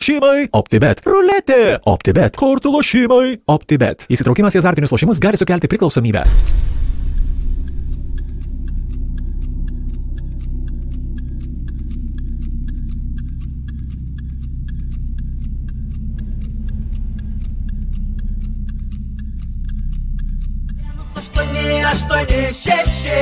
Šeimai OptiBet. Ruletė OptiBet. Kortų lošimai OptiBet. Įsitraukimas į azartinius lošimus gali sukelti priklausomybę. Aštuoni, šeši,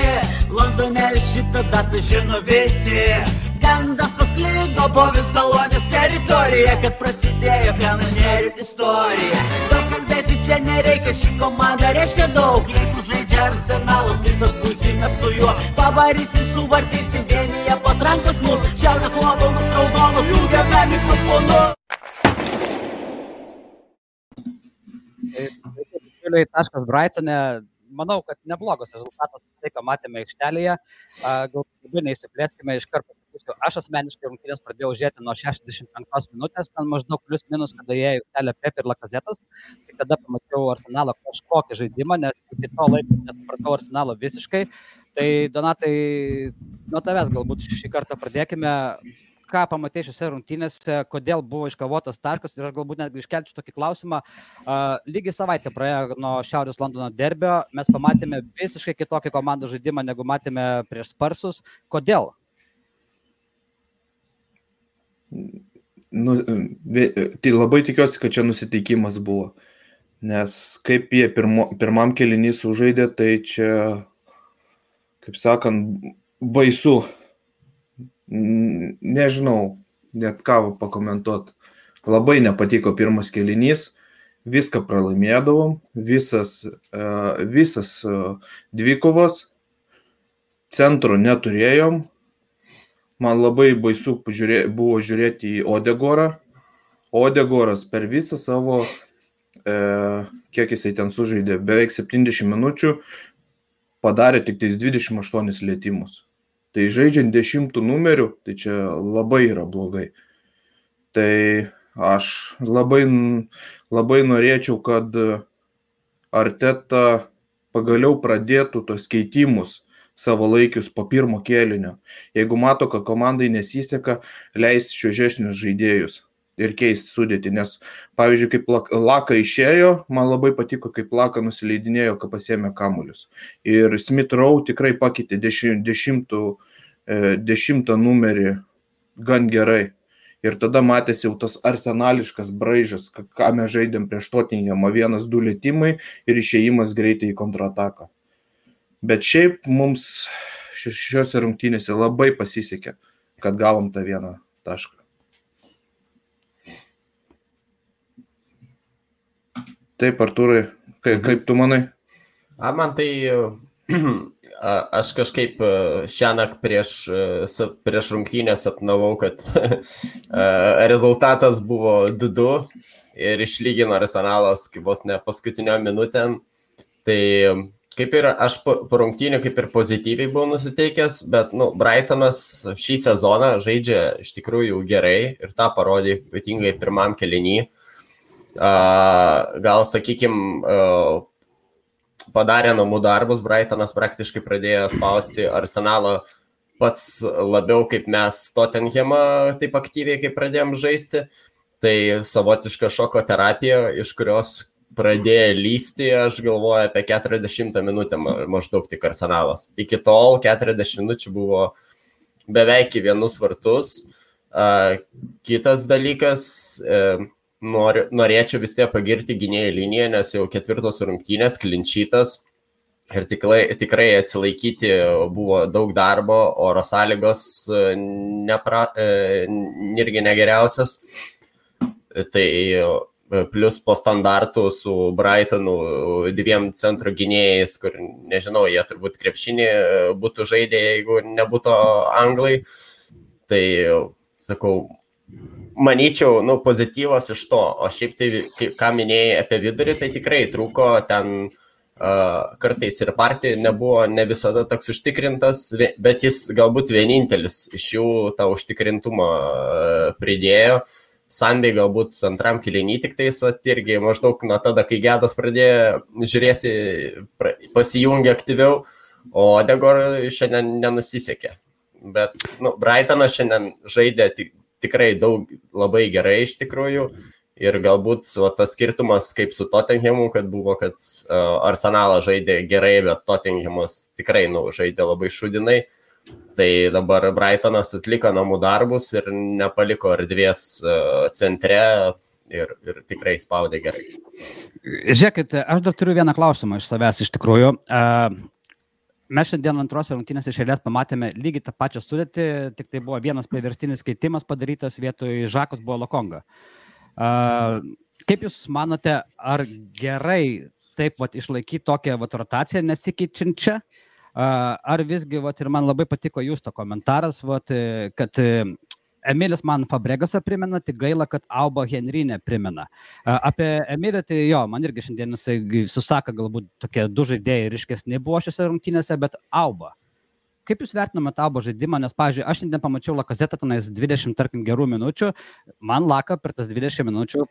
Londonėlį šitą datą žino visi. Gandas pasklido po visą Lonės teritoriją, kad prasidėjo kanonierių istorija. Daug kalbėti čia nereikia, ši komanda reiškia daug. Jeigu žaidžia Arsenalas, visas būsime su juo. Pavarysim, suvartysim, vienyje patrankos mūsų. Šiaurės Londonas raudonas, jungiame mikrofonu. Taškas Brightone. Manau, kad neblogas rezultatas, tai ką matėme aikštelėje. Galbūt neįsiplėskime iš karto. Aš asmeniškai rungtynės pradėjau žiūrėti nuo 65 minutės, ten maždaug plius minus, kada jie aikštelė Pep ir Lacazettas. Tai kada pamačiau Arsenalo kažkokį žaidimą, nes iki to laiko nesupratau Arsenalo visiškai. Tai Donatai, nuo tavęs galbūt šį kartą pradėkime. Ką pamatė šiose rungtynėse, kodėl buvo iškovotas taškas ir aš galbūt netgi iškelčiau tokį klausimą. Lygiai savaitę praėjo nuo Šiaurės Londono derbio, mes pamatėme visiškai kitokį komandų žaidimą, negu matėme prieš Sparsus. Kodėl? Tai labai tikiuosi, kad čia nusiteikimas buvo, nes kaip jie pirmam kėlinį sužaidė, tai čia, kaip sakant, baisu. Nežinau, net ką pakomentuot. Labai nepatiko pirmas kėlinys, viską pralaimėdavom, visas dvikovas, centro neturėjom. Man labai baisu buvo žiūrėti į Odegorą. Odegoras per visą savo, kiek jisai ten sužaidė, beveik 70 minučių, padarė tik 28 lietimus. Tai žaidžiant 10 numerių, tai čia labai yra blogai. Tai aš labai norėčiau, kad Arteta pagaliau pradėtų tos keitimus savalaikius po pirmo kėlinio. Jeigu mato, kad komandai nesiseka, leis šviežesnius žaidėjus ir keisti sudėtį. Nes, pavyzdžiui, kaip Laka išėjo, man labai patiko, kaip Laka nusileidinėjo, kai pasiėmė kamuolius. Ir Smith Rowe tikrai pakeitė 10 numerį gan gerai. Ir tada matėsi jau tas arsenališkas braižas, ką mes žaidėm prieš Tottenhamą, 1-2 lietimai ir išėjimas greitai į kontrataką. Bet šiaip mums šiose rungtynėse labai pasisekė, kad gavom tą vieną tašką. Taip, Artūrai, kaip tu manai? Man tai, aš kažkaip šiąnakt prieš rungtynės sapnavau, kad rezultatas buvo 2-2 ir išlygino Arsenalas vos ne paskutinio minutėm. Tai kaip ir aš po rungtynių kaip ir pozityviai buvau nusiteikęs, bet Brightonas šį sezoną žaidžia iš tikrųjų gerai ir tą parodė ypatingai pirmam kėliny. Gal, sakykime, padarė namų darbus, Brightonas praktiškai pradėjo spausti Arsenalą pats labiau, kaip mes Tottenhamą taip aktyviai, kaip pradėjom žaisti. Tai savotiška šoko terapija, iš kurios pradėjo lysti, aš galvoju, apie 40 minutę maždaug tik Arsenalas. Iki tol 40 minučių buvo beveik į vienus vartus. Kitas dalykas, norėčiau vis tiek pagirti gynėjų liniją, nes jau 4 rungtynės, klinčytas ir tikrai atsilaikyti buvo daug darbo, oro sąlygos irgi negeriausios. Tai plus po standartų su Brightonu 2 centro gynėjais, kur nežinau, jie turbūt krepšinį būtų žaidę, jeigu nebūtų anglai. Tai, sakau, manyčiau, pozityvas iš to, o šiaip tai, ką minėjai apie vidurį, tai tikrai trūko ten kartais ir partija nebuvo ne visada toks užtikrintas, bet jis galbūt vienintelis iš jų tą užtikrintumą pridėjo. Sandai galbūt antram kėliny tik tais, irgi maždaug nuo tada, kai Gedas pradėjo žiūrėti, pasijungė aktyviau, o Odegor šiandien nenusisekė. Bet Brightonas šiandien žaidė tikrai labai gerai iš tikrųjų. Ir galbūt tas skirtumas kaip su Tottenhamu, kad buvo, kad Arsenalas žaidė gerai, bet Tottenhamas tikrai žaidė labai šudinai. Tai dabar Brightonas atliko namų darbus ir nepaliko erdvės centre ir tikrai spaudė gerai. Žiūrėkit, aš dar turiu vieną klausimą iš savęs iš tikrųjų. Mes šiandien antrose rungtynėse iš eilės pamatėme lygiai tą pačią sudėtį, tik tai buvo vienas priverstinis keitimas padarytas, vietoj Žakos buvo Lokonga. Kaip Jūs manote, ar gerai taip išlaikyti tokią rotaciją nesikeičiančią, ar visgi, ir man labai patiko Jūsų komentaras, kad Emilis man Fabregasą primena, tik gaila, kad Auba Henry neprimena. Apie Emilį, tai man irgi šiandien jisai susaka, galbūt tokie du žaidėjai ryškesni buvo šiose rungtynėse, bet Auba. Kaip Jūs vertinate Aubo žaidimą, nes, pavyzdžiui, aš šiandien pamačiau Lakazetą tenais 20, tarkim, gerų minučių, man Laka per tas 20 minučių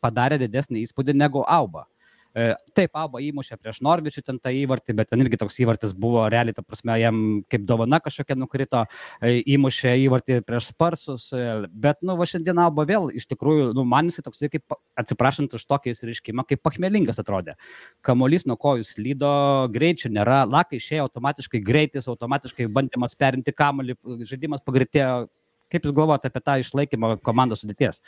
padarė didesnį įspūdį negu Auba. Taip, Auba įmušė prieš Norvičių ten tą įvartį, bet ten irgi toks įvartis buvo realiai, ta prasme, jam kaip dovana kažkokia nukrito, įmušė įvartį prieš Sparsus, bet, šiandien Auba vėl, iš tikrųjų, man jisai toks, kaip, atsiprašant už tokį įsiriškimą, kaip pachmelingas atrodė. Kamuolys nuo kojų slydo, greičių nėra, Laka išėjo automatiškai greitis, automatiškai bandymas perinti kamuolį, žaidimas pagreitėjo. Kaip Jūs galvojate apie tą išlaikymą komandos sudėties?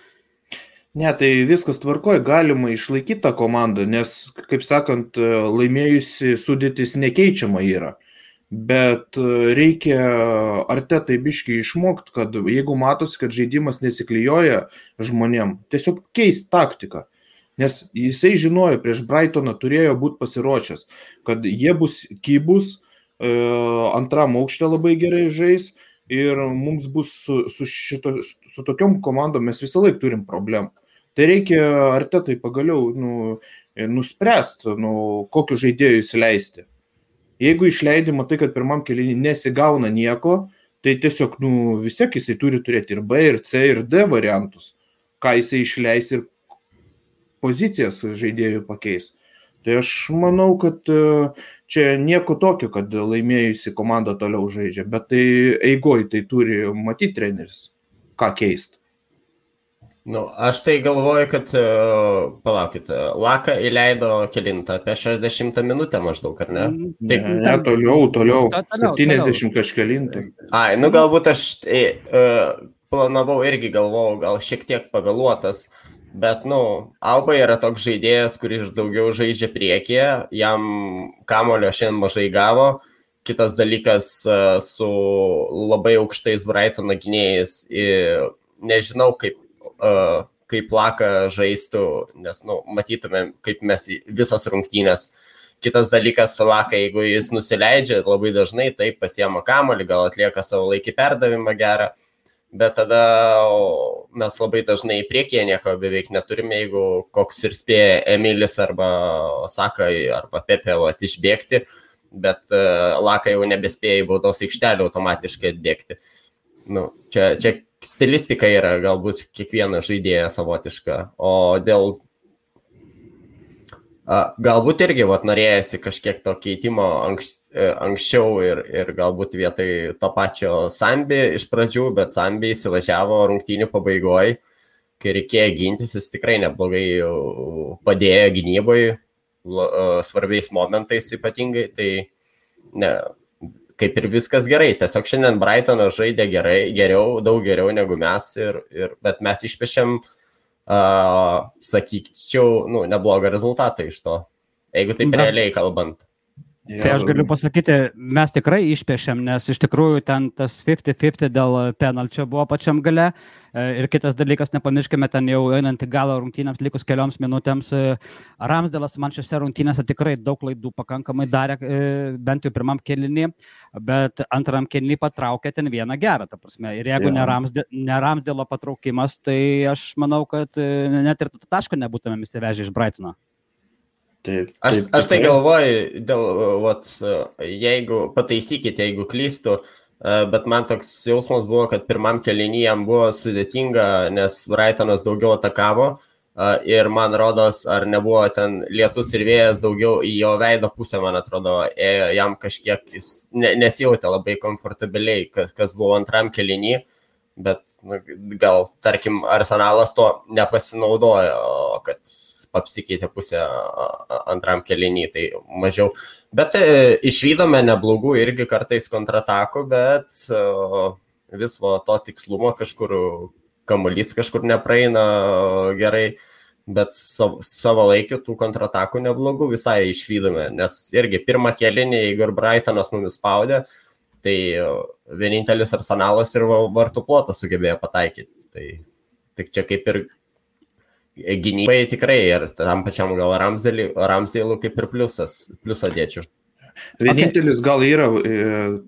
Ne, tai viskas tvarkoja, galima išlaikyti tą komandą, nes, kaip sakant, laimėjusi sudėtis nekeičiama yra. Bet reikia Artetai biškį išmokti, kad jeigu matosi, kad žaidimas nesiklijuoja žmonėm, tiesiog keist taktiką. Nes jisai žinojo, prieš Brightoną turėjo būti pasiruošęs, kad jie bus kybus, antram aukšte labai gerai žais ir mums bus su tokiom komandom mes visą laiką turim problemų. Tai reikia Artetai pagaliau nuspręsti, kokiu žaidėjų įsileisti. Jeigu išleidi, matai, kad pirmam kėlinį nesigauna nieko, tai tiesiog vis tiek jisai turi turėti ir B, ir C, ir D variantus, ką jisai išleis ir pozicijas žaidėjų pakeis. Tai aš manau, kad čia nieko tokio, kad laimėjusi komanda toliau žaidžia, bet tai eigoj tai turi matyti treneris, ką keisti. Aš tai galvoju, kad, palaukit, Laka įleido kelintą, apie 60 minutę maždaug, ar ne? Ne, toliau, 70 kažkelintą. Galbūt aš planavau irgi galvojau, gal šiek tiek pavėluotas, bet, Auba yra toks žaidėjas, kuris daugiau žaidžia priekyje, jam kamulio šiandien mažai gavo. Kitas dalykas su labai aukštais Brightono gynėjais, nežinau, kaip Laka žaistų, nes matytumėm, kaip mes visas rungtynės. Kitas dalykas, Laka, jeigu jis nusileidžia labai dažnai, taip pasiema kamuolį, gal atlieka savo laikį perdavimą gerą, bet tada mes labai dažnai į priekį nieko beveik neturime, jeigu koks ir spėja Emilis arba Saka arba Pepe išbėgti, bet Laka jau nebespėja į baudos aikštelę automatiškai atbėgti. Čia stilistika yra galbūt kiekviena žaidėja savotiška, o dėl galbūt irgi norėjasi kažkiek to keitimo anksčiau ir galbūt vietoj to pačio Sambi iš pradžių, bet Sambi įsivažiavo rungtynių pabaigoje, kai reikėjo gintis, jis tikrai neblogai padėjo gynybai, svarbiais momentais ypatingai, tai ne. Kaip ir viskas gerai, tiesiog šiandien Brightonas žaidė daug geriau negu mes, bet mes išpešėm, sakyčiau, neblogą rezultatą iš to, jeigu taip realiai kalbant. Tai aš galiu pasakyti, mes tikrai išpešėm, nes iš tikrųjų ten tas 50-50 dėl penalčio buvo pačiam gale. Ir kitas dalykas, nepamirškime, ten jau einant į galą rungtynėms likus kelioms minutėms, Ramsdelas man šiose rungtynėse tikrai daug klaidų pakankamai darė, bent jau pirmam kėlinį, bet antram kėlinį patraukė ten vieną gerą, ta prasme. Ir jeigu ne Ramsdelo patraukimas, tai aš manau, kad net ir taško nebūtumėm įsivežę iš Brightono. Aš tai galvoju, jeigu pataisykite, jeigu klystu, bet man toks jausmas buvo, kad pirmam kėlinį jam buvo sudėtinga, nes Brightonas daugiau atakavo ir man rodos, ar nebuvo ten lietus ir vėjas daugiau į jo veido pusę, man atrodo, jam kažkiek nesjautė labai komfortabiliai, kas buvo antram kėlinį. bet gal, tarkim, Arsenalas to nepasinaudojo, kad apsikeitė pusę antram kėlinį, tai mažiau. Bet išvydome neblogų irgi kartais kontratakų, bet vis to tikslumo kažkur, kamuolys kažkur nepraeina gerai, bet savo laikį tų kontratakų neblogų visai išvydome, nes irgi pirmą kėlinį, jeigu ir Brightonas mumis spaudė, tai vienintelis Arsenalas ir vartų plotą sugebėjo pataikyti. Tai tik čia kaip ir gynybai tikrai ir tam pačiam gal Ramsdale'u kaip ir pliusą dėčiau. Vienintelis gal yra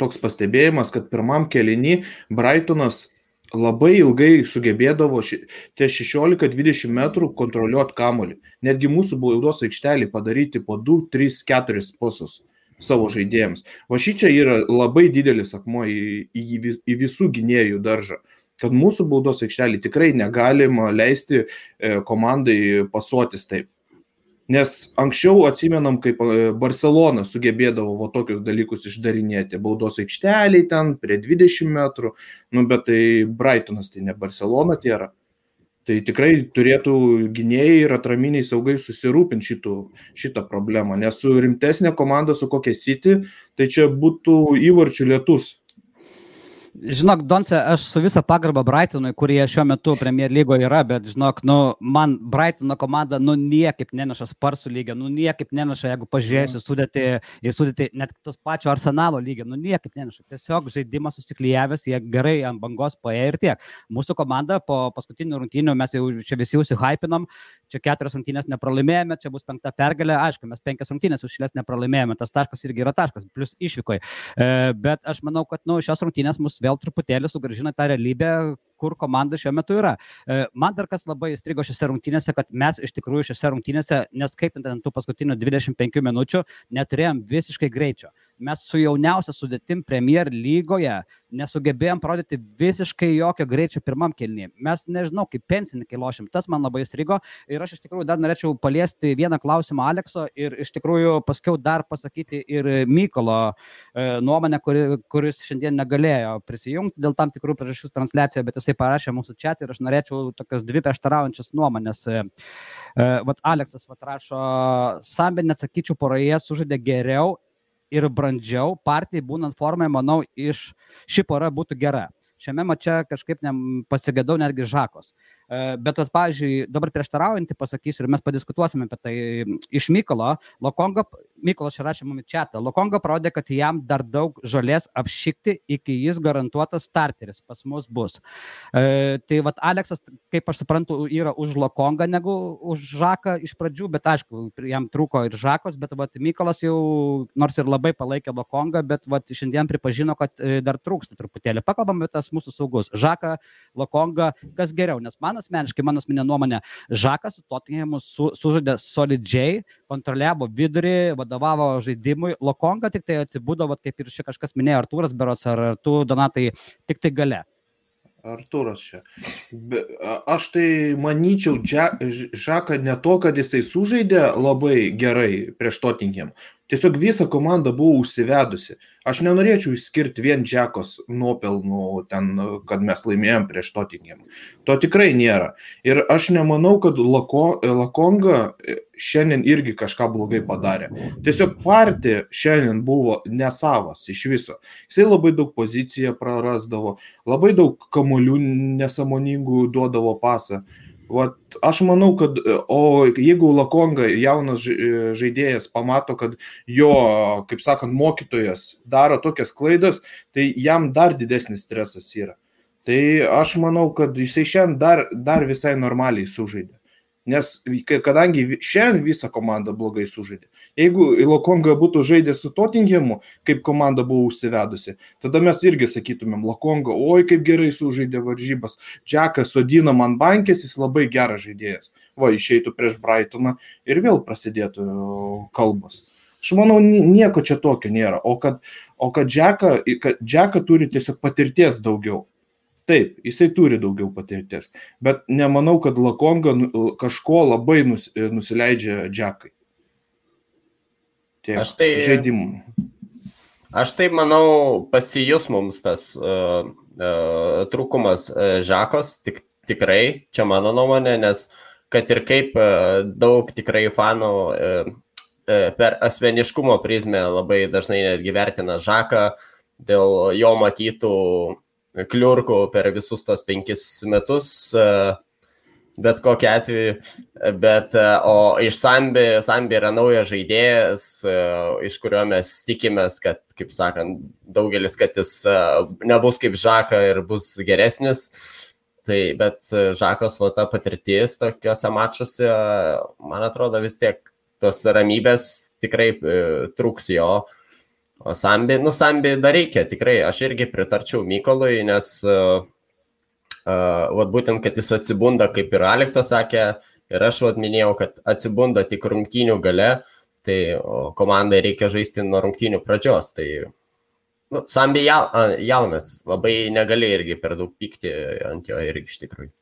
toks pastebėjimas, kad pirmam kėlinį Brightonas labai ilgai sugebėdavo ties 16-20 metrų kontroliuoti kamuolį. Netgi mūsų baudos aikštelį padaryti po 2, 3, 4 pasus savo žaidėjams. Va šičia yra labai didelis akmuo į visų gynėjų daržą, kad mūsų baudos aikštelį tikrai negalima leisti komandai pasuotis taip. Nes anksčiau atsimenam, kaip Barcelona sugebėdavo va tokius dalykus išdarinėti. Baudos aikšteliai ten prie 20 metrų, bet tai Brightonas, tai ne Barcelona tėra. Tai tikrai turėtų gynėjai ir atraminiai saugai susirūpinti šitą problemą. Nes su rimtesnė komanda, su kokia City, tai čia būtų įvarčių lietus. Žinok, Donce, aš su visą pagarbą Brightonui, kurie šiuo metu Premier lygoje yra, bet žinok, man Brightono komanda niekaip neneša Sparsų lygio, niekaip neneša, jeigu pažiūrėsiu sudėti net tos pačio Arsenalo lygio, niekaip neneša. Tiesiog žaidimas susiklijavęs, jie gerai ant bangos paėjo ir tiek. Mūsų komanda po paskutinių rungtynių, mes jau čia visi užsihypinom, čia 4 rungtynės nepralaimėjome, čia bus 5 pergalė, aišku, mes 5 rungtynės užšilės nepralaimėjome, tas taškas irgi yra taškas, plus išvykoje. Bet aš manau, kad šios rungtynės mus vėl truputėlį sugrąžina tą realybę, kur komanda šiuo metu yra. Man dar kas labai įstrigo šiose rungtynėse, kad mes iš tikrųjų šiose rungtynėse, neskaitant ant tų paskutinių 25 minučių, neturėjom visiškai greičio. Mes su jauniausia sudėtim Premier lygoje nesugebėjom parodyti visiškai jokio greičio pirmam kėlinyje. Mes nežinau, kaip pensininkai lošim, tas man labai įstrigo ir aš iš tikrųjų dar norėčiau paliesti vieną klausimą Alekso ir iš tikrųjų paskiau dar pasakyti ir Mykolo nuomonę, kuris šiandien negalėjo prisijungti dėl tam tikrų priežasčių transliaciją, bet jisai parašė mūsų chat ir aš norėčiau tokias 2 prieštaraujančias nuomonės. Aleksas rašo, Sambi, nesakyčiau, poroje sužaidė geriau ir brandžiau, partijai būnant formai, manau, ši pora būtų gera. Šiame mače kažkaip pasigėdau netgi Žakos. Bet, pavyzdžiui, dabar prieštaraujantį pasakysiu ir mes padiskutuosime apie tai iš Mykolo. Mykolas čia rašė mums chatą. Lokonga parodė, kad jam dar daug žolės apšikti, iki jis garantuotas starteris pas mus bus. Tai Aleksas, kaip aš suprantu, yra už Lokongą negu už Žaką iš pradžių, bet aišku, jam trūko ir Žakos, bet Mykolas jau nors ir labai palaikė Lokongą, bet šiandien pripažino, kad dar trūksta truputėlį. Pakalbam apie tas mūsų saugus. Žaką, Lokonga, kas geriau, nes man asmeniškai, mano asmeninė nuomonė, Žakas su Tottenhamu sužaidė solidžiai, kontroliavo vidurį, vadovavo žaidimui. Lokonga tik tai atsibudo, kaip ir čia kažkas minėjo, Artūras berods, ar tu, Donatai, tik tai gale. Artūras čia. Aš tai manyčiau, Žaką ne to, kad jisai sužaidė labai gerai prieš Tottenham. Tiesiog visa komanda buvo užsivedusi. Aš nenorėčiau išskirti vien Džekos nuopelnų ten, kad mes laimėjom prieš Tottenham. To tikrai nėra. Ir aš nemanau, kad Lokonga šiandien irgi kažką blogai padarė. Tiesiog partija šiandien buvo nesavas iš viso. Jisai labai daug poziciją prarasdavo, labai daug kamuolių nesąmoningų duodavo pasą. Aš manau, kad jeigu Lokonga jaunas žaidėjas pamato, kad jo, kaip sakant, mokytojas daro tokias klaidas, tai jam dar didesnis stresas yra. Tai aš manau, kad jisai šiandien dar visai normaliai sužaidė. Nes kadangi šiandien visa komanda blogai sužaidė. Jeigu Lokonga būtų žaidęs su Tottenhamu, kaip komanda buvo užsivedusi, tada mes irgi sakytumėm, Lokonga, oi kaip gerai sužaidė varžybas, Džekas sodina man bankės, jis labai geras žaidėjas. Išeitų prieš Brightoną ir vėl prasidėtų kalbos. Aš manau, nieko čia tokio nėra. O kad Džeka turi tiesiog patirties daugiau. Taip, jisai turi daugiau patirties, bet nemanau, kad Lokonga kažko labai nusileidžia Džekai. Aš tai Aš taip manau, pasijus mums tas trūkumas Žakos, tikrai, čia mano nuomonė, nes kad ir kaip daug tikrai fanų per asmeniškumo prizmę labai dažnai netgi vertina Žaką dėl jo matytų kliurkų per visus tos 5 metus, bet kokiu atveju, o iš Sambi yra naujas žaidėjas, iš kurio mes tikimės, kad, kaip sakant, daugelis, kad jis nebus kaip Žaka ir bus geresnis, bet Žakos ta patirtis tokiuose mačuose, man atrodo, vis tiek tos ramybės tikrai trūks jo. O Sambi dar reikia, tikrai, aš irgi pritarčiau Mykolui, nes būtent, kad jis atsibunda, kaip ir Aleksas sakė, ir aš minėjau, kad atsibunda tik rungtynių gale, tai komandai reikia žaisti nuo rungtynių pradžios. Tai Sambi jaunas, labai negali irgi per daug pykti ant jo irgi iš tikrųjų.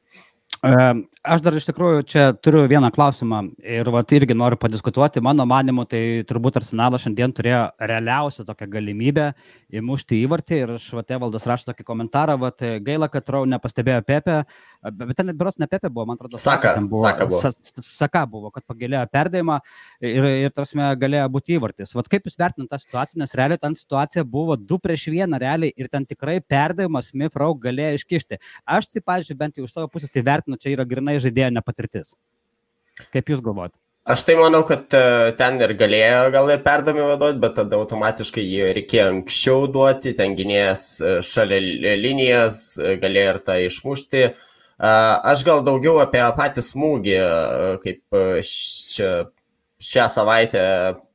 Aš dar iš tikrųjų čia turiu vieną klausimą ir irgi noriu padiskutuoti. Mano manimu, tai turbūt Arsenalas šiandien turėjo realiausią tokią galimybę įmušti įvartį ir Evaldas rašo tokį komentarą, gaila, kad Rau nepastebėjo Pepe, bet ten beros ne Pepe buvo, man atrodo, Saka buvo, kad pagėlėjo perdavimą ir tarsi galėjo būti įvartis. Kaip jūs vertinate tą situaciją, nes realiai ten situacija buvo 2-1 realiai ir ten tikrai perdavimas Smith Rowe galėjo iškišti. Aš tai, pavyzdžiui, bent jau iš savo pusės tai vertinu, čia yra grinai žaidėjo nepatirtis. Kaip jūs galvojate? Aš tai manau, kad ten ir galėjo gal ir perdavimą duoti, bet tada automatiškai jį reikėjo anksčiau duoti, ten gynėjas šalia linijas, galėjo ir tą išmušti. Aš gal daugiau apie patį smūgį, kaip šią savaitę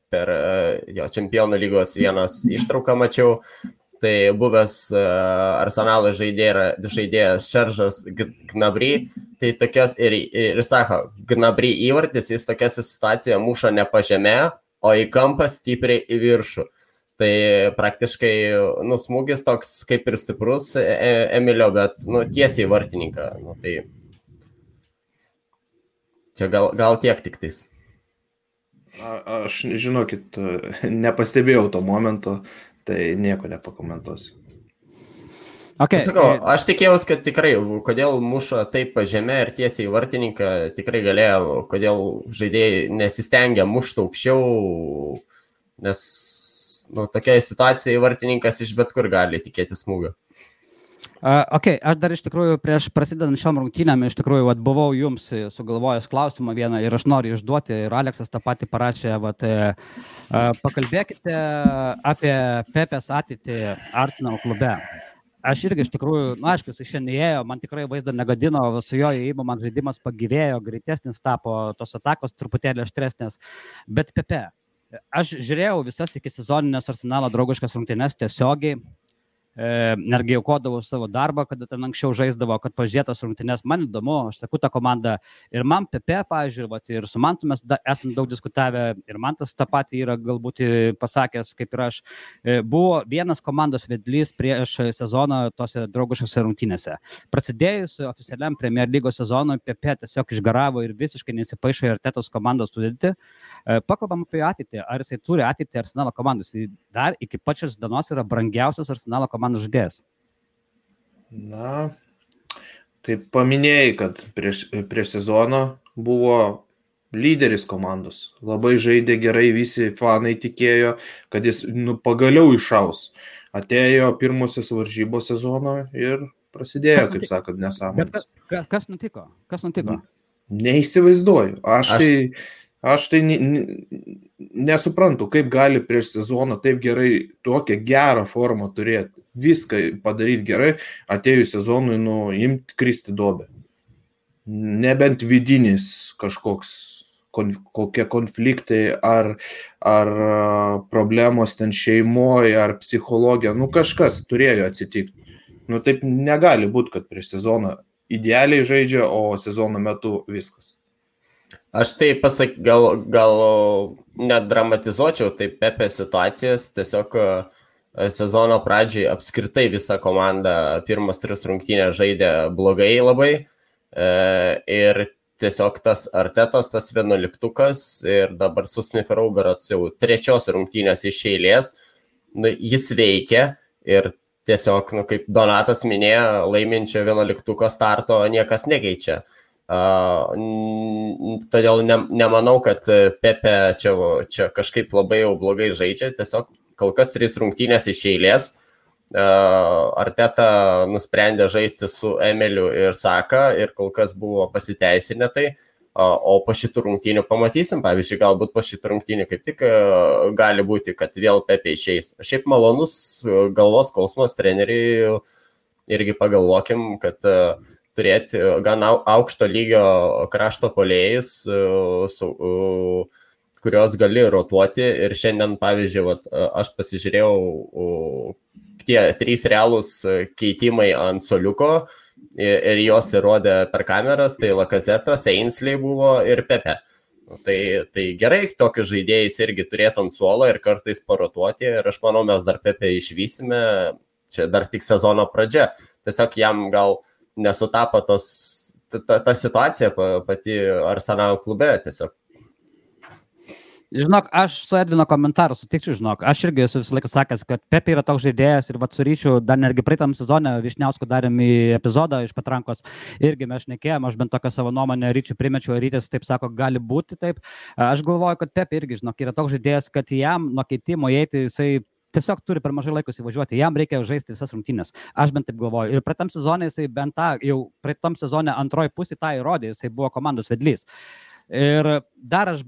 per Čempionų lygos vienas ištrauką mačiau. Tai buvęs Arsenalo žaidėjas Šeržas Gnabry, tai tokias ir sako, Gnabry įvartis, jis tokia situacija muša ne po žemę, o į kampą stipriai į viršų. Tai praktiškai smūgis toks kaip ir stiprus Emilio, bet tiesiai vartininką. Tai čia gal tiek tik tais. Aš, žinokit, nepastebėjau to momento. Tai nieko nepakomentuosiu. Okay. Sakau, aš tikėjausi, kad tikrai, kodėl muša taip pažemė ir tiesiai į vartininką, tikrai galėjo, kodėl žaidėjai nesistengia mušti aukščiau, nes tokia situacija vartininkas iš bet kur gali tikėti smūgio. Aš dar iš tikrųjų prieš prasidedant šiom rungtynėm iš tikrųjų buvau jums sugalvojęs klausimą vieną ir aš noriu išduoti ir Aleksas tą patį parašė, pakalbėkite apie Pepės ateitį Arsenal klube. Aš irgi iš tikrųjų, aišku, jis šiandien ėjo, man tikrai vaizdą negadino, su jo įėjimu man žaidimas pagyvėjo, greitesnis tapo, tos atakos truputėlį aštresnės, bet Pepe, aš žiūrėjau visas iki sezoninės Arsenalo draugiškas rungtynes tiesiogiai, netgi aukodavau savo darbą, kada ten anksčiau žaisdavo, kad pažiūrėtas rungtynes, man įdomu, aš sakau tą komandą ir man Pepe, pavyzdžiui, ir su Mantu mes esam daug diskutavę ir Mantas tą patį yra galbūt pasakęs, kaip ir aš, buvo vienas komandos vedlys prieš sezoną tose draugiškose rungtynėse. Prasidėjus oficialiam Premier lygos sezonui, Pepe tiesiog išgaravo ir visiškai nesipaišo į Artetos komandos sudėtį. Pakalbam apie ateitį, ar jisai turi ateitį Arsenalo komandos, dar iki pačios dienos yra brangiausias Arsenalo komandos žaidėjas. Na, kaip paminėjai, kad prieš sezoną buvo lyderis komandos. Labai žaidė gerai, visi fanai tikėjo, kad jis pagaliau išaus. Atėjo pirmosios varžybos sezono ir prasidėjo, kaip sakant, nesąmonės. Kas nutiko? Neįsivaizduoju. Aš tai nesuprantu, kaip gali prieš sezoną taip gerai, tokią gerą formą turėti, viską padaryti gerai, atėjus sezonui, imti kristi duobę. Nebent vidinis kokie konfliktai ar problemos ten šeimoje, ar psichologija, kažkas turėjo atsitikti. Taip negali būti, kad prieš sezoną idealiai žaidžia, o sezono metu viskas. Aš tai gal net dramatizuočiau taip Pepe situacijas, tiesiog sezono pradžiai apskritai visa komanda pirmas 3 rungtynės žaidė blogai labai ir tiesiog tas Artetos, tas 11-tukas ir dabar su Smith Rowe berods jau 3 rungtynės iš eilės, jis veikia ir tiesiog, kaip Donatas minėjo, laiminčio 11 starto niekas nekeičia. Todėl nemanau, kad Pepe čia kažkaip labai jau blogai žaidžia, tiesiog kol kas 3 rungtynės iš eilės. Arteta nusprendė žaisti su Emiliu ir Saka ir kol kas buvo pasiteisinę tai, o po šitų rungtynių pamatysim, pavyzdžiui, galbūt po šitų rungtynių kaip tik gali būti, kad vėl Pepe išeis. Šiaip malonus galvos skausmas treneriai, irgi pagalvokim, kad turėti gan aukšto lygio krašto puolėjus, kurios gali rotuoti ir šiandien, pavyzdžiui, aš pasižiūrėjau tie 3 realūs keitimai ant suoliuko ir jos įrodė per kameras, tai Lacazettas, Ainsley buvo ir Pepe. Tai gerai, tokius žaidėjus irgi turėtų ant suolo ir kartais parotuoti ir aš manau, mes dar Pepe išvysime, čia dar tik sezono pradžia. Tiesiog jam gal nesutapo ta situacija pati Arsenal klube tiesiog. Žinok, aš su Edvino komentaru sutikčiau, žinok, aš irgi esu visą laiką sakęs, kad Pepe yra toks žaidėjas ir su Ryčiu dar netgi praeitam sezone Vyšniausku darėm į epizodą iš patrankos, irgi mes šnekėjom, aš bent tokią savo nuomonę Ryčiu primečiau, Rytis taip sako, gali būti taip. Aš galvoju, kad Pepe irgi, žinok, yra toks žaidėjas, kad jam nuo keitimo įeiti jisai tiesiog turi per mažai laikus įvažiuoti, jam reikia žaisti visas rungtynės. Aš bent taip galvoju. Ir praeitam sezone jisai bent jau praeitam sezone antroji pusė tą įrodė, jisai buvo komandos vedlys. Ir dar aš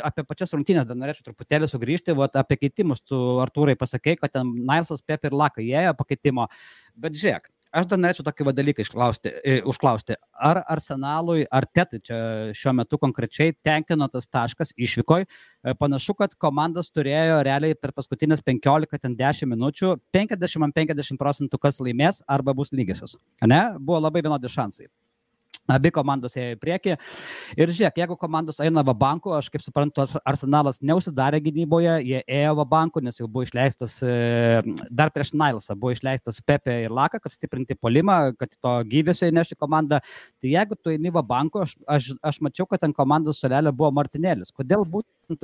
apie pačias rungtynės dar norėčiau truputėlį sugrįžti, apie keitimus tu, Artūrai, pasakei, kad ten Nilesas, Pepe ir Laka įėjo pakeitimo, bet žiūrėk, aš dar norėčiau tokį dalyką užklausti, ar Arsenalui, ar Tetai čia šiuo metu konkrečiai tenkino tas taškas išvykoj, panašu, kad komandos turėjo realiai per paskutinės 15-10 minučių 50% kas laimės arba bus lygiosios, ne? Buvo labai vienodi šansai. Abi komandos ėjo į priekį. Ir žiūrėk, jeigu komandos eina va banku, aš kaip suprantu, Arsenalas neusidarė gynyboje, jie ėjo va banku, nes jau buvo išleistas, dar prieš Nilesą buvo išleistas Pepe ir Laka, kad stiprinti puolimą, kad to gyvesio įnešti komandą. Tai jeigu tu eini va banku, aš mačiau, kad ant komandos suolelio buvo Martinėlis. Kodėl būtent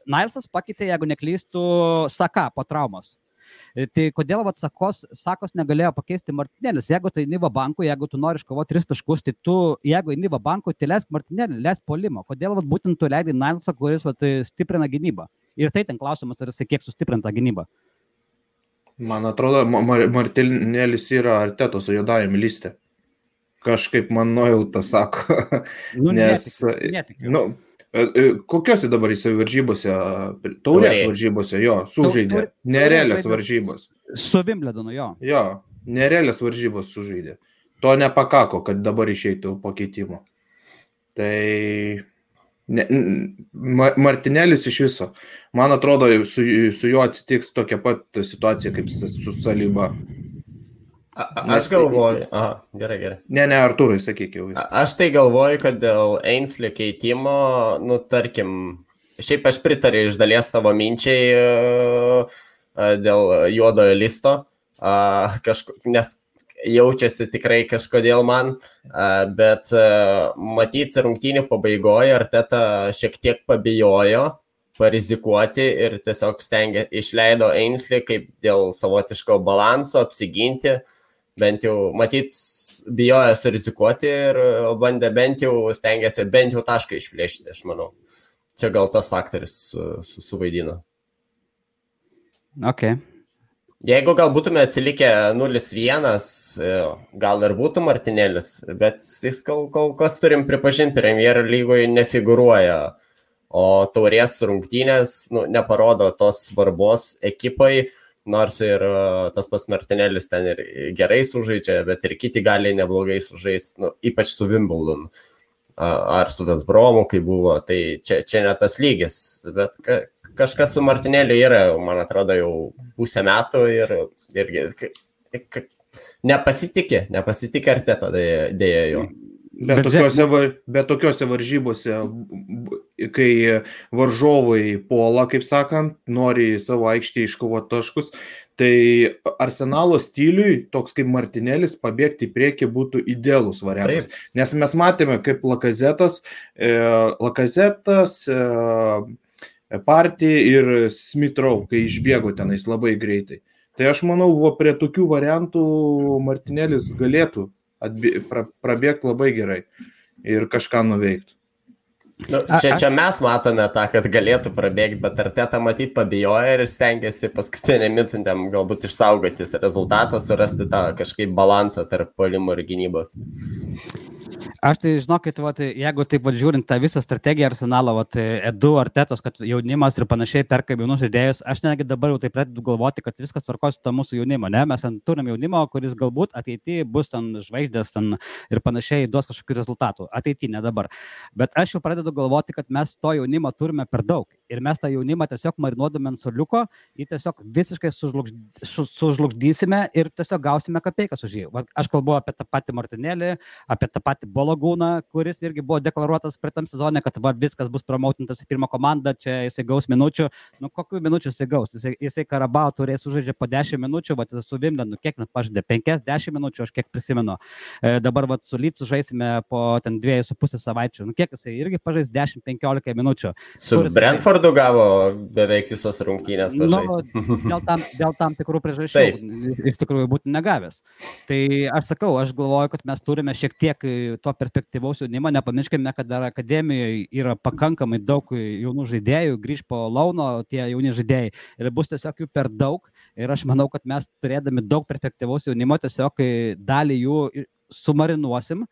Nilesas pakeitė, jeigu neklystų, Saka po traumos? Tai kodėl Sakos negalėjo pakeisti Martinėlis? Jeigu tai Niva banku, jeigu tu nori iškovoti 3 taškus, tai tu, jeigu Niva banku, tai leisk Martinėlį, leisk puolimą. Kodėl būtent tu leidai Nilesą, kuris stiprina gynybą? Ir tai ten klausimas, ar jisai kiek sustiprinta gynybą. Man atrodo, Martinėlis yra Artetos juodajame liste. Kažkaip man nuojauta sako. Netikiu. Kokiuose dabar jisai varžybose, taurės varžybose, jo, sužaidė, nerealias varžybos. Su Wimbledonu, jo. Jo, nerealias varžybos sužaidė. To nepakako, kad dabar išeitų po keitimo. Tai Martinėlis iš viso. Man atrodo, su juo atsitiks tokia pat situacija kaip su Saliba. Aš galvoju, gerai. Ne, Artūrai, sakyk jau. Aš tai galvoju, kad dėl Ainsley keitimo, tarkim, šiaip aš pritariu iš dalies tavo minčiai dėl juodojo listo, nes jaučiasi tikrai kažkodėl man, bet matyti rungtynių pabaigoje Arteta šiek tiek pabijojo parizikuoti ir tiesiog išleido Ainsley kaip dėl savotiško balanso apsiginti. Bent jau, matyt, bijojo surizikuoti ir bandė stengiasi bent jau tašką išplėšti, aš manau. Čia gal tas faktorius suvaidino. Okay. Jeigu gal būtume atsilikę 0-1, gal ir būtų Martinėlis, bet jis kol kas turim pripažinti, Premier lygoje nefigūruoja, o taurės rungtynės neparodo tos svarbos ekipai, nors ir tas pats Martinėlis ten ir gerai sužaidžia, bet ir kiti gali neblogai sužaisti, ypač su Wimbledonu ar su West Bromu, kai buvo, tai čia ne tas lygis, bet kažkas su Martinėliu yra, man atrodo, jau pusę metų ir nepasitikė Arteta dėja jo. Bet tokiuose varžybose, kai varžovai puola, kaip sakant, nori savo aikštėje iškovoti taškus, tai Arsenalo stiliui toks kaip Martinėlis pabėgti į priekį būtų idealus variantas. Taip. Nes mes matėme, kaip Lacazettas Partį ir Smith Rowe, kai išbėgo tenais labai greitai. Tai aš manau, prie tokių variantų Martinėlis galėtų prabėgti labai gerai ir kažką nuveikti. Nu, čia mes matome tą, kad galėtų prabėgti, bet Arteta matyt pabijoja ir stengiasi paskutinę minutėm galbūt išsaugoti rezultatą, surasti tą kažkaip balansą tarp puolimo ir gynybos. Aš tai žinokit, jeigu taip žiūrint tą visą strategiją Arsenalo, Edu, Artetos, kad jaunimas ir panašiai perka jaunus žaidėjus, aš netgi dabar jau taip pradedu galvoti, kad viskas tvarkosi to mūsų jaunimo, ne? Mes turim jaunimo, kuris galbūt ateityje bus žvaigždės ir panašiai duos kažkokių rezultatų. Ateityje, ne dabar. Bet aš jau pradedu galvoti, kad mes to jaunimo turime per daug. Ir mes tą jaunimą tiesiog marinuodami ant suoliuko, jį tiesiog visiškai sužlugdysime ir tiesiog gausime kapeikas už jį. Aš kalbu apie tą patį Martinėlį, apie tą patį Bologūną, kuris irgi buvo deklaruotas praeitam sezone, kad viskas bus promautintas į pirmą komandą, čia jisai gaus minučių. Nu, kokių minučių jisai gaus? Jisai Karabao turės sužaidžia po 10 minučių, su Vimblenu kiek net pažaidė? 5-10 minučių, aš kiek prisimenu. Dabar su Lycu žaisime po 2,5 savaičių. Nu, kiek jisai irgi pažais 10-15 minučių. Su Brentfordu gavo beveik visos rungtynės pažaisti. Dėl tam tikrų priežasčių iš tikrųjų būtų negavęs. Tai aš sakau, aš galvoju, kad mes turime šiek tiek to perspektyvaus jaunimo, nepamirškime, kad dar akademijoje yra pakankamai daug jaunų žaidėjų, grįž po launo tie jauni žaidėjai ir bus tiesiog jų per daug ir aš manau, kad mes turėdami daug perspektyvaus jaunimo tiesiog dalį jų sumarinuosim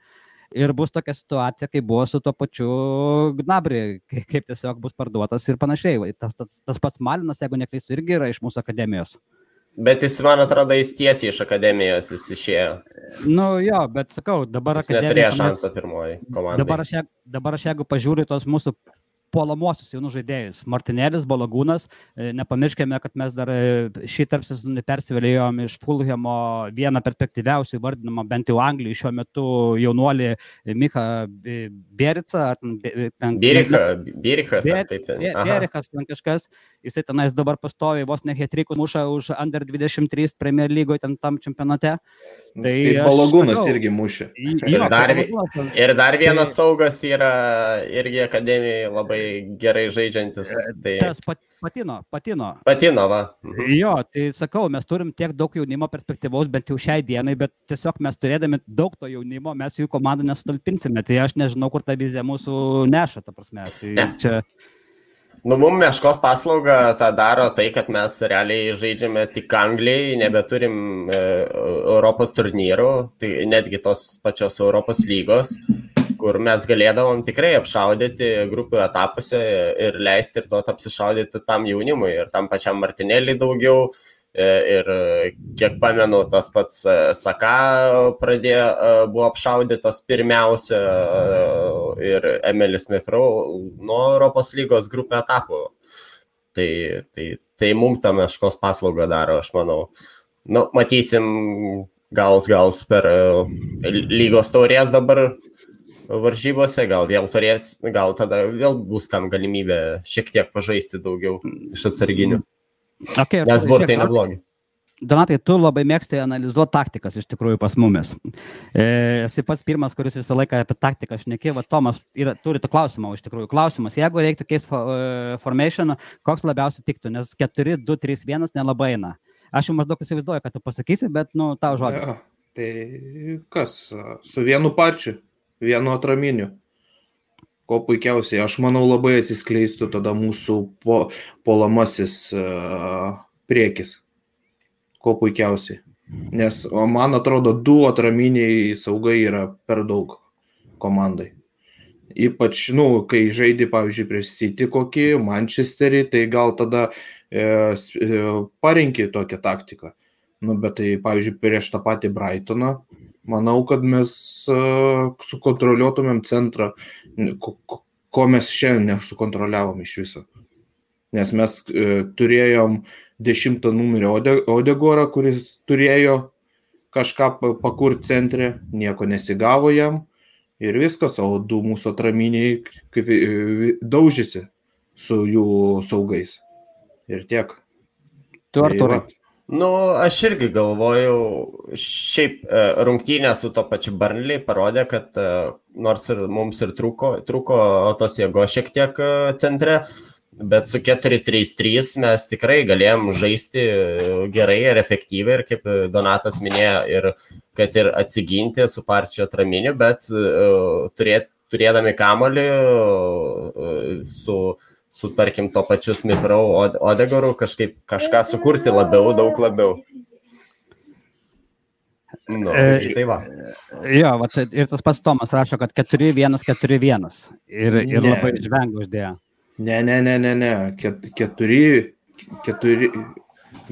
ir bus tokia situacija, kai buvo su tuo pačiu Gnabry, kaip tiesiog bus parduotas ir panašiai. Tas pats Malinas, jeigu neklystu, irgi yra iš mūsų akademijos. Bet jis, man atrodo, jis tiesiai iš akademijos jis išėjo. Nu jo, bet sakau, dabar jis neturėjo šansą pirmoji komandai. Dabar aš jeigu pažiūriu tos mūsų puolamuosius jaunų žaidėjus. Martinėlis, Bologūnas, nepamirškime, kad mes dar šį tarpsezonį persivėlėjom iš Fulhamo vieną perspektyviausių įvardinamą, bent jau Anglijai šiuo metu jaunuolį Micha Bierica. Bierichas, kaip ten. Bierichas, ten kažkas. Jisai tenais dabar pastoviai vos ne hat-trickus muša už Under 23 Premier lygoje tam čempionate. Tai Bologūnas irgi mušė. Ir dar vienas saugas yra irgi akademijai labai gerai žaidžiantis. Tai... Tas Patino, va. Jo, tai sakau, mes turim tiek daug jaunimo perspektyvaus, bent jau šiai dienai, bet tiesiog mes turėdami daug to jaunimo, mes jų komandą nesutalpinsime. Tai aš nežinau, kur ta vizija mūsų neša, ta prasme. Tai čia... Nu, mums Meškos paslauga tą daro tai, kad mes realiai žaidžiame tik Anglijai, nebeturim Europos turnyrų, tai netgi tos pačios Europos lygos, kur mes galėdavom tikrai apšaudyti grupių etapuose ir leisti ir duoti apsišaudyti tam jaunimui ir tam pačiam Martinėliui daugiau. Ir kiek pamenu, tas pats Saka buvo apšaudytas pirmiausia ir Emilis Smith Rowe nuo Europos lygos grupių etapų. Tai mums tą Meškos paslaugą daro, aš manau. Nu, matysim, gal per lygos taurės dabar varžybose, gal vėl turės, gal tada vėl bus kam galimybė šiek tiek pažaisti daugiau iš atsarginių. Okay, nes burtai neblogi. Donatai, tu labai mėgsti analizuoti taktikas iš tikrųjų pas mumis. Esi pats pirmas, kuris visą laiką apie taktiką šneki. Tomas turi to klausimą, iš tikrųjų. Klausimas, jeigu reiktų keisti formation, koks labiausiai tiktų, nes 4-2-3-1 nelabai eina. Aš jau maždaug įsivaizduoju, kad tu pasakysi, bet tau žodis. Ja, tai kas? Su vienu pačiu, vienu atraminiu. Ko puikiausiai, aš manau, labai atsiskleistų tada mūsų puolamasis priekis. Ko puikiausiai. Nes man atrodo, 2 atraminiai saugai yra per daug komandai. Ypač, kai žaidži, pavyzdžiui, prieš City kokį, Manchesterį, tai gal tada parinki tokią taktiką. Bet tai, pavyzdžiui, prieš tą patį Brightoną, manau, kad mes sukontroliuotumėm centrą, ko mes šiandien nesukontroliavom iš viso. Nes mes turėjom 10 numerio Odegorą, kuris turėjo kažką pakurti centre, nieko nesigavo jam ir viskas, o 2 mūsų atraminiai daužėsi su jų saugais. Ir tiek. Tu Artūrai? Nu, aš irgi galvojau, šiaip rungtynės su to pačiu Burnley parodė, kad nors ir mums ir trūko tos jėgos šiek tiek centre, Bet su 4-3-3 mes tikrai galėjom žaisti gerai ir efektyviai ir kaip Donatas minėjo, ir kad ir atsiginti su Parčio atraminiu, bet turėdami kamuolį su tarkim to pačiu Smith Rowe Odegaru kažką sukurti daug labiau. Tai va. Jo, va, ir tas pats Tomas rašo, kad 4-1-4-1 ir labai žvengia uždėjo. Ne. 4.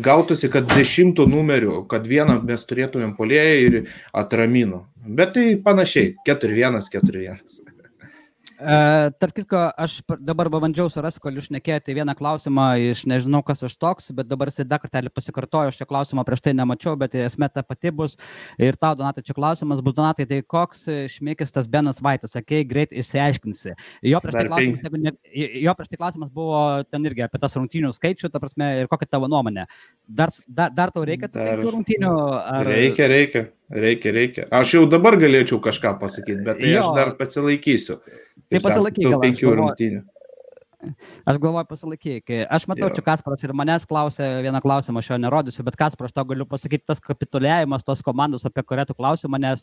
Gautųsi, kad 10 numerių, kad vieną mes turėtumėm puolėją ir atramino. Bet tai panašiai, 4-1-4-1. Tarp kitko, aš dabar bandžiau surasti, kol jūs šnekėjote vieną klausimą iš nežinau, kas aš toks, bet dabar jis dar kartelį pasikartojo, aš šio klausimą prieš tai nemačiau, bet esmė ta pati bus. Ir tau, Donatai, čia klausimas bus, Donatai, tai koks šmėkis tas Benas Vaitas, sakei, greit išsiaiškinsi. Jo prieš tai klausimas buvo ten irgi apie tas rungtynių skaičių, ta prasme, ir kokia tavo nuomonė. Dar tau reikia tų rungtynių? Ar... Reikia. Aš jau dabar galėčiau kažką pasakyti, bet tai aš dar pasilaikysiu. Tai pasilaikyk, gal 5 rungtynių. Aš galvoju pasilaikyk. Aš matau, čia Kasparas ir manęs klausė vieną klausimą, aš jo nerodysiu, bet Kasparas, tau galiu pasakyti, tas kapituliavimas tos komandos, apie kurią tu klausimą, nes,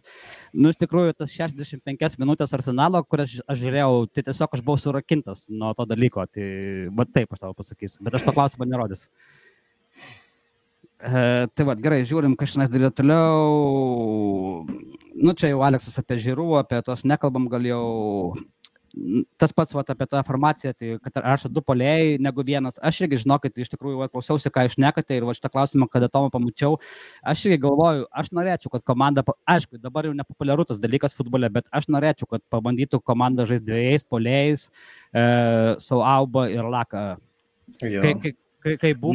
iš tikrųjų, tas 65 minutės Arsenalo, kurias aš žiūrėjau, tai tiesiog aš buvau surakintas nuo to dalyko, tai va taip aš tau pasakysiu, bet aš to klausimą nerodysiu. Tai va, gerai, žiūrim, kas šiandien darė toliau. Čia jau Aleksas apie Žirų, apie tos nekalbam, gal jau... Tas pats apie tą informaciją, tai kad rašo 2 puolėjai negu vienas. Aš irgi žinokit, iš tikrųjų klausiausi, ką išnekate ir šitą klausimą, kada Tomą pamačiau, aš irgi galvoju, aš norėčiau, kad komanda, aišku, dabar jau nepopuliaru tas dalykas futbole, bet aš norėčiau, kad pabandytų komanda žaisti 2 puolėjais, su Auba ir Laka. Kai buvo,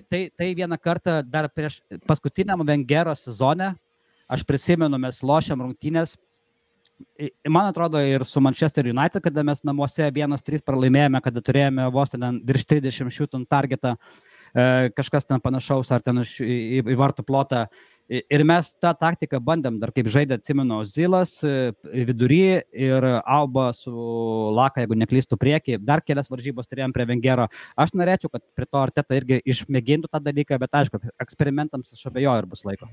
tai vieną kartą dar prieš paskutiniam Vengero sezone, aš prisimenu, mes lošiam rungtynės. Man atrodo ir su Manchester United, kada mes namuose 1-3 pralaimėjome, kada turėjome vos ten virš 30 shoot on targetą, kažkas ten panašaus ar ten į vartų plotą. Ir mes tą taktiką bandėm, dar kaip žaidė, atsimenu, Zilas vidury ir Auba su Laka, jeigu neklystų priekį. Dar kelias varžybos turėjom prie Vengero. Aš norėčiau, kad prie to Arteta irgi išmėgintų tą dalyką, bet aišku, eksperimentams aš abejoju ir bus laiko.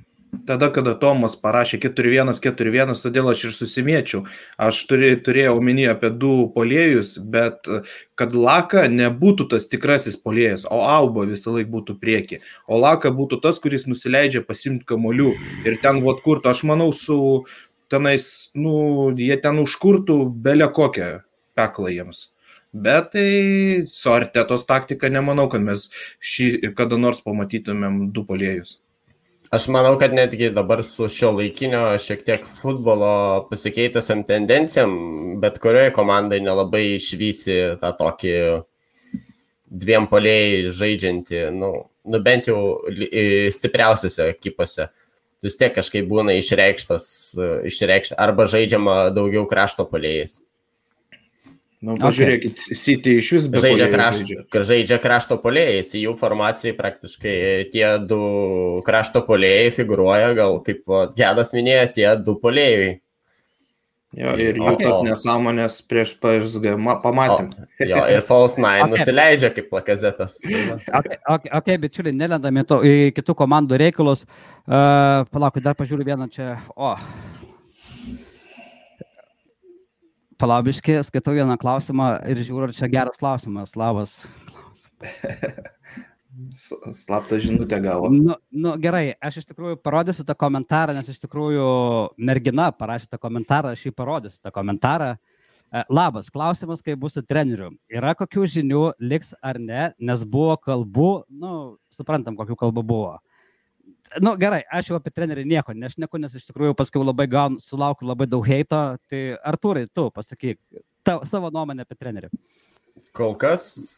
Tada, kada Tomas parašė 4-1-4-1, todėl aš ir susimėčiau. Aš turėjau omeny apie 2 puolėjus, bet kad Laka nebūtų tas tikrasis puolėjas, o Auba visą laiką būtų prieki. O Laka būtų tas, kuris nusileidžia pasimti kamuolių. Ir ten kurtų, aš manau, su tenais, jie ten užkurtų belę kokią peklą jiems. Bet tai su Artetos taktika nemanau, kad mes kada nors pamatytumėm 2 puolėjus. Aš manau, kad netgi dabar su šio laikinio šiek tiek futbolo pasikeitusiam tendencijam, bet kurioje komandai nelabai išvysi tą tokį 2 puolėjai žaidžiantį, bent jau stipriausiose ekipose. Vis tiek kažkaip būna išreikšta arba žaidžiama daugiau krašto puolėjais. Pažiūrėkit, City iš vis be žaidžia krašto puolėjais, į jų formacijai praktiškai tie 2 krašto puolėjai figuruoja, gal kaip Gedas minėjo, tie 2 puolėjai. Jo, ir jų tas nesąmonės prieš PSG pamatėm. Jo, ir False 9 nusileidžia kaip Lakazetas. Ok, bičiuliai, nelendami į kitų komandų reikalus. Palaukit, dar pažiūriu vieną čia. Palaubiškai, skaitau vieną klausimą ir žiūriu, ar čia geras klausimas. Labas. Slaptą žinutę gavo. Gerai, aš iš tikrųjų parodysiu tą komentarą, nes iš tikrųjų mergina parašė tą komentarą, aš jį parodysiu tą komentarą. Labas, klausimas, kaip bus su treneriu. Yra kokių žinių, liks ar ne, nes buvo kalbų, suprantam, kokių kalbų buvo. Gerai, aš jau apie trenerį nieko nešneku, nes iš tikrųjų paskui labai sulaukiu labai daug heito. Tai Artūrai, tu pasakyk savo nuomonę apie trenerį. Kol kas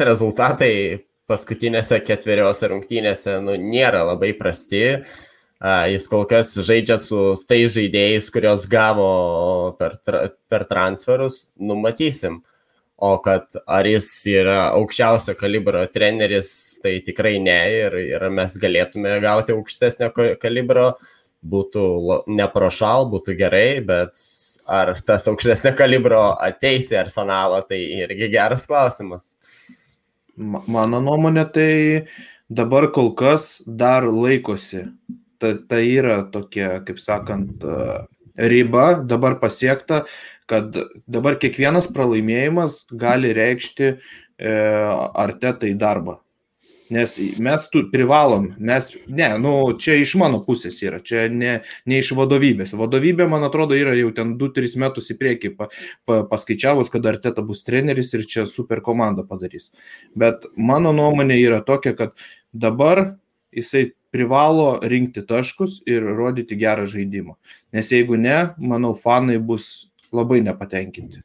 rezultatai paskutinėse 4 rungtynėse nėra labai prasti. Jis kol kas žaidžia su tai žaidėjais, kurios gavo per transferus, matysim. O kad ar jis yra aukščiausio kalibro treneris, tai tikrai ne. Ir mes galėtume gauti aukštesnio kalibro būtų neprošal, būtų gerai, bet ar tas aukštesnio kalibro ateis į Arsenalą, tai irgi geras klausimas. Mano nuomonė, tai dabar kol kas dar laikosi. Tai yra tokia, kaip sakant, riba dabar pasiekta, kad dabar kiekvienas pralaimėjimas gali reikšti Artetai darbą. Nes mes privalom, čia iš mano pusės yra, čia ne iš vadovybės. Vadovybė, man atrodo, yra jau ten 2-3 metus į priekį paskaičiavus, kad Arteta bus treneris ir čia super komandą padarys. Bet mano nuomonė yra tokia, kad dabar jisai privalo rinkti taškus ir rodyti gerą žaidimą. Nes jeigu ne, manau, fanai bus labai nepatenkinti.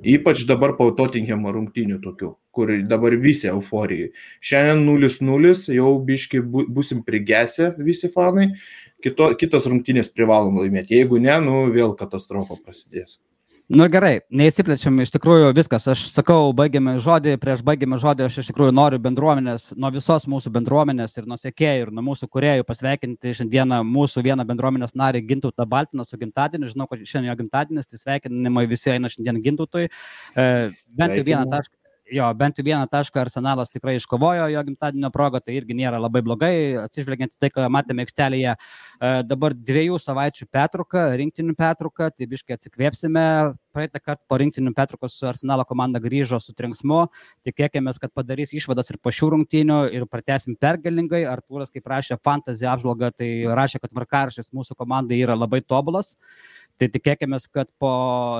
Ypač dabar po Tottenhamo rungtynių tokių, kur dabar visi euforijai. Šiandien 0-0, jau biški busim prigesę visi fanai, kitas rungtynės privalom laimėti. Jeigu ne, vėl katastrofa prasidės. Gerai, neįsiplečiam, iš tikrųjų viskas. Aš sakau, prieš baigiame žodį, aš iš tikrųjų noriu bendruomenės, nuo visos mūsų bendruomenės ir nuo sekėjų ir nuo mūsų kūrėjų pasveikinti šiandieną mūsų vieną bendruomenės narį Gintautą Baltiną su gimtadieniu. Žinau, kad šiandien jo gimtadienis, tai sveikinimai visi eina šiandien Gintautui. Bent jau vieną tašką Arsenalas tikrai iškovojo jo gimtadienio progą, tai irgi nėra labai blogai, atsižvelgiant į tai, ką matėme aikštelėje. Dabar 2 savaičių pertrauka, rinktinių pertrauka, tai biškai atsikvėpsime. Praeitą kartą po rinktinių pertraukos Arsenalo komanda grįžo su trenksmu, tikėkimės, kad padarys išvadas ir po šių rungtynių ir pratęsim pergalingai. Artūras, kaip rašė fantasy apžvalgą, tai rašė, kad tvarkaraštis mūsų komandai yra labai tobulas. Tai tikėkimės, kad po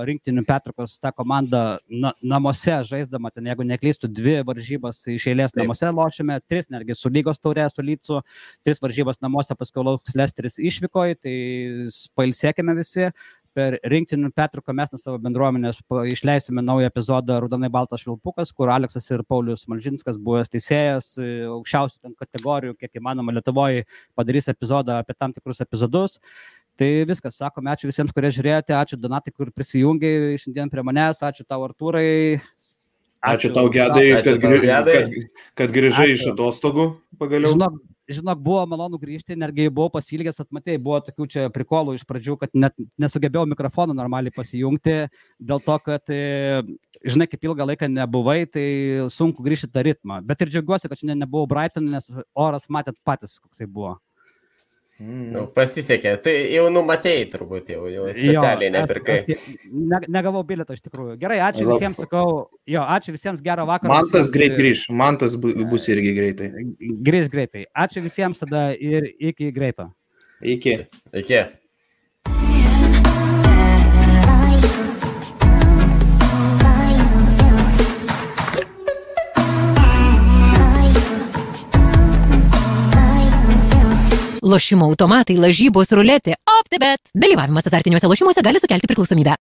rinktinių pertraukos ta komanda namuose žaisdama, ten jeigu neklystų 2 varžybas iš eilės namuose lošime, 3 netgi su lygos taurė, su Lycu, 3 varžybas namuose, paskui lauks Leicesteris išvykoje, tai pailsėkime visi. Per rinktinių pertrauką mes nuo savo bendruomenės išleisime naują epizodą Raudonai baltas švilpukas, kur Aleksas ir Paulius Malžinskas, buvęs teisėjas, aukščiausių ten kategorijų, kiek įmanoma Lietuvoje, padarys epizodą apie tam tikrus epizodus. Tai viskas, sakome, ačiū visiems, kurie žiūrėjote, ačiū Donatai, kur prisijungiai šiandien prie manęs, ačiū tau Artūrai. Ačiū tau, Gedai, kad grįžai iš atostogų pagaliau. Žinok, buvo malonu grįžti, netgi buvau pasilgęs, atmatėjai, buvo tokių čia prikolų iš pradžių, kad net nesugebėjau mikrofoną normaliai pasijungti, dėl to, kad, žinai, kaip ilgą laiką nebuvai, tai sunku grįžti tą ritmą. Bet ir džiaugiuosi, kad šiandien nebuvau Brighton'e, nes oras matėt patys, koksai buvo. Pasisekė, tai jau numatėjai turbūt, jau specialiai nepirkai. Negavau bilietą iš tikrųjų. Gerai, ačiū visiems, sakau, ačiū visiems, gero vakaro. Mantas greit grįž, Mantas bus irgi greitai. Grįž greitai. Ačiū visiems tada ir iki greito. Iki. Lošimo automatai, lažybos, ruletė, OptiBet. Dalyvavimas azartiniuose lošimuose gali sukelti priklausomybę.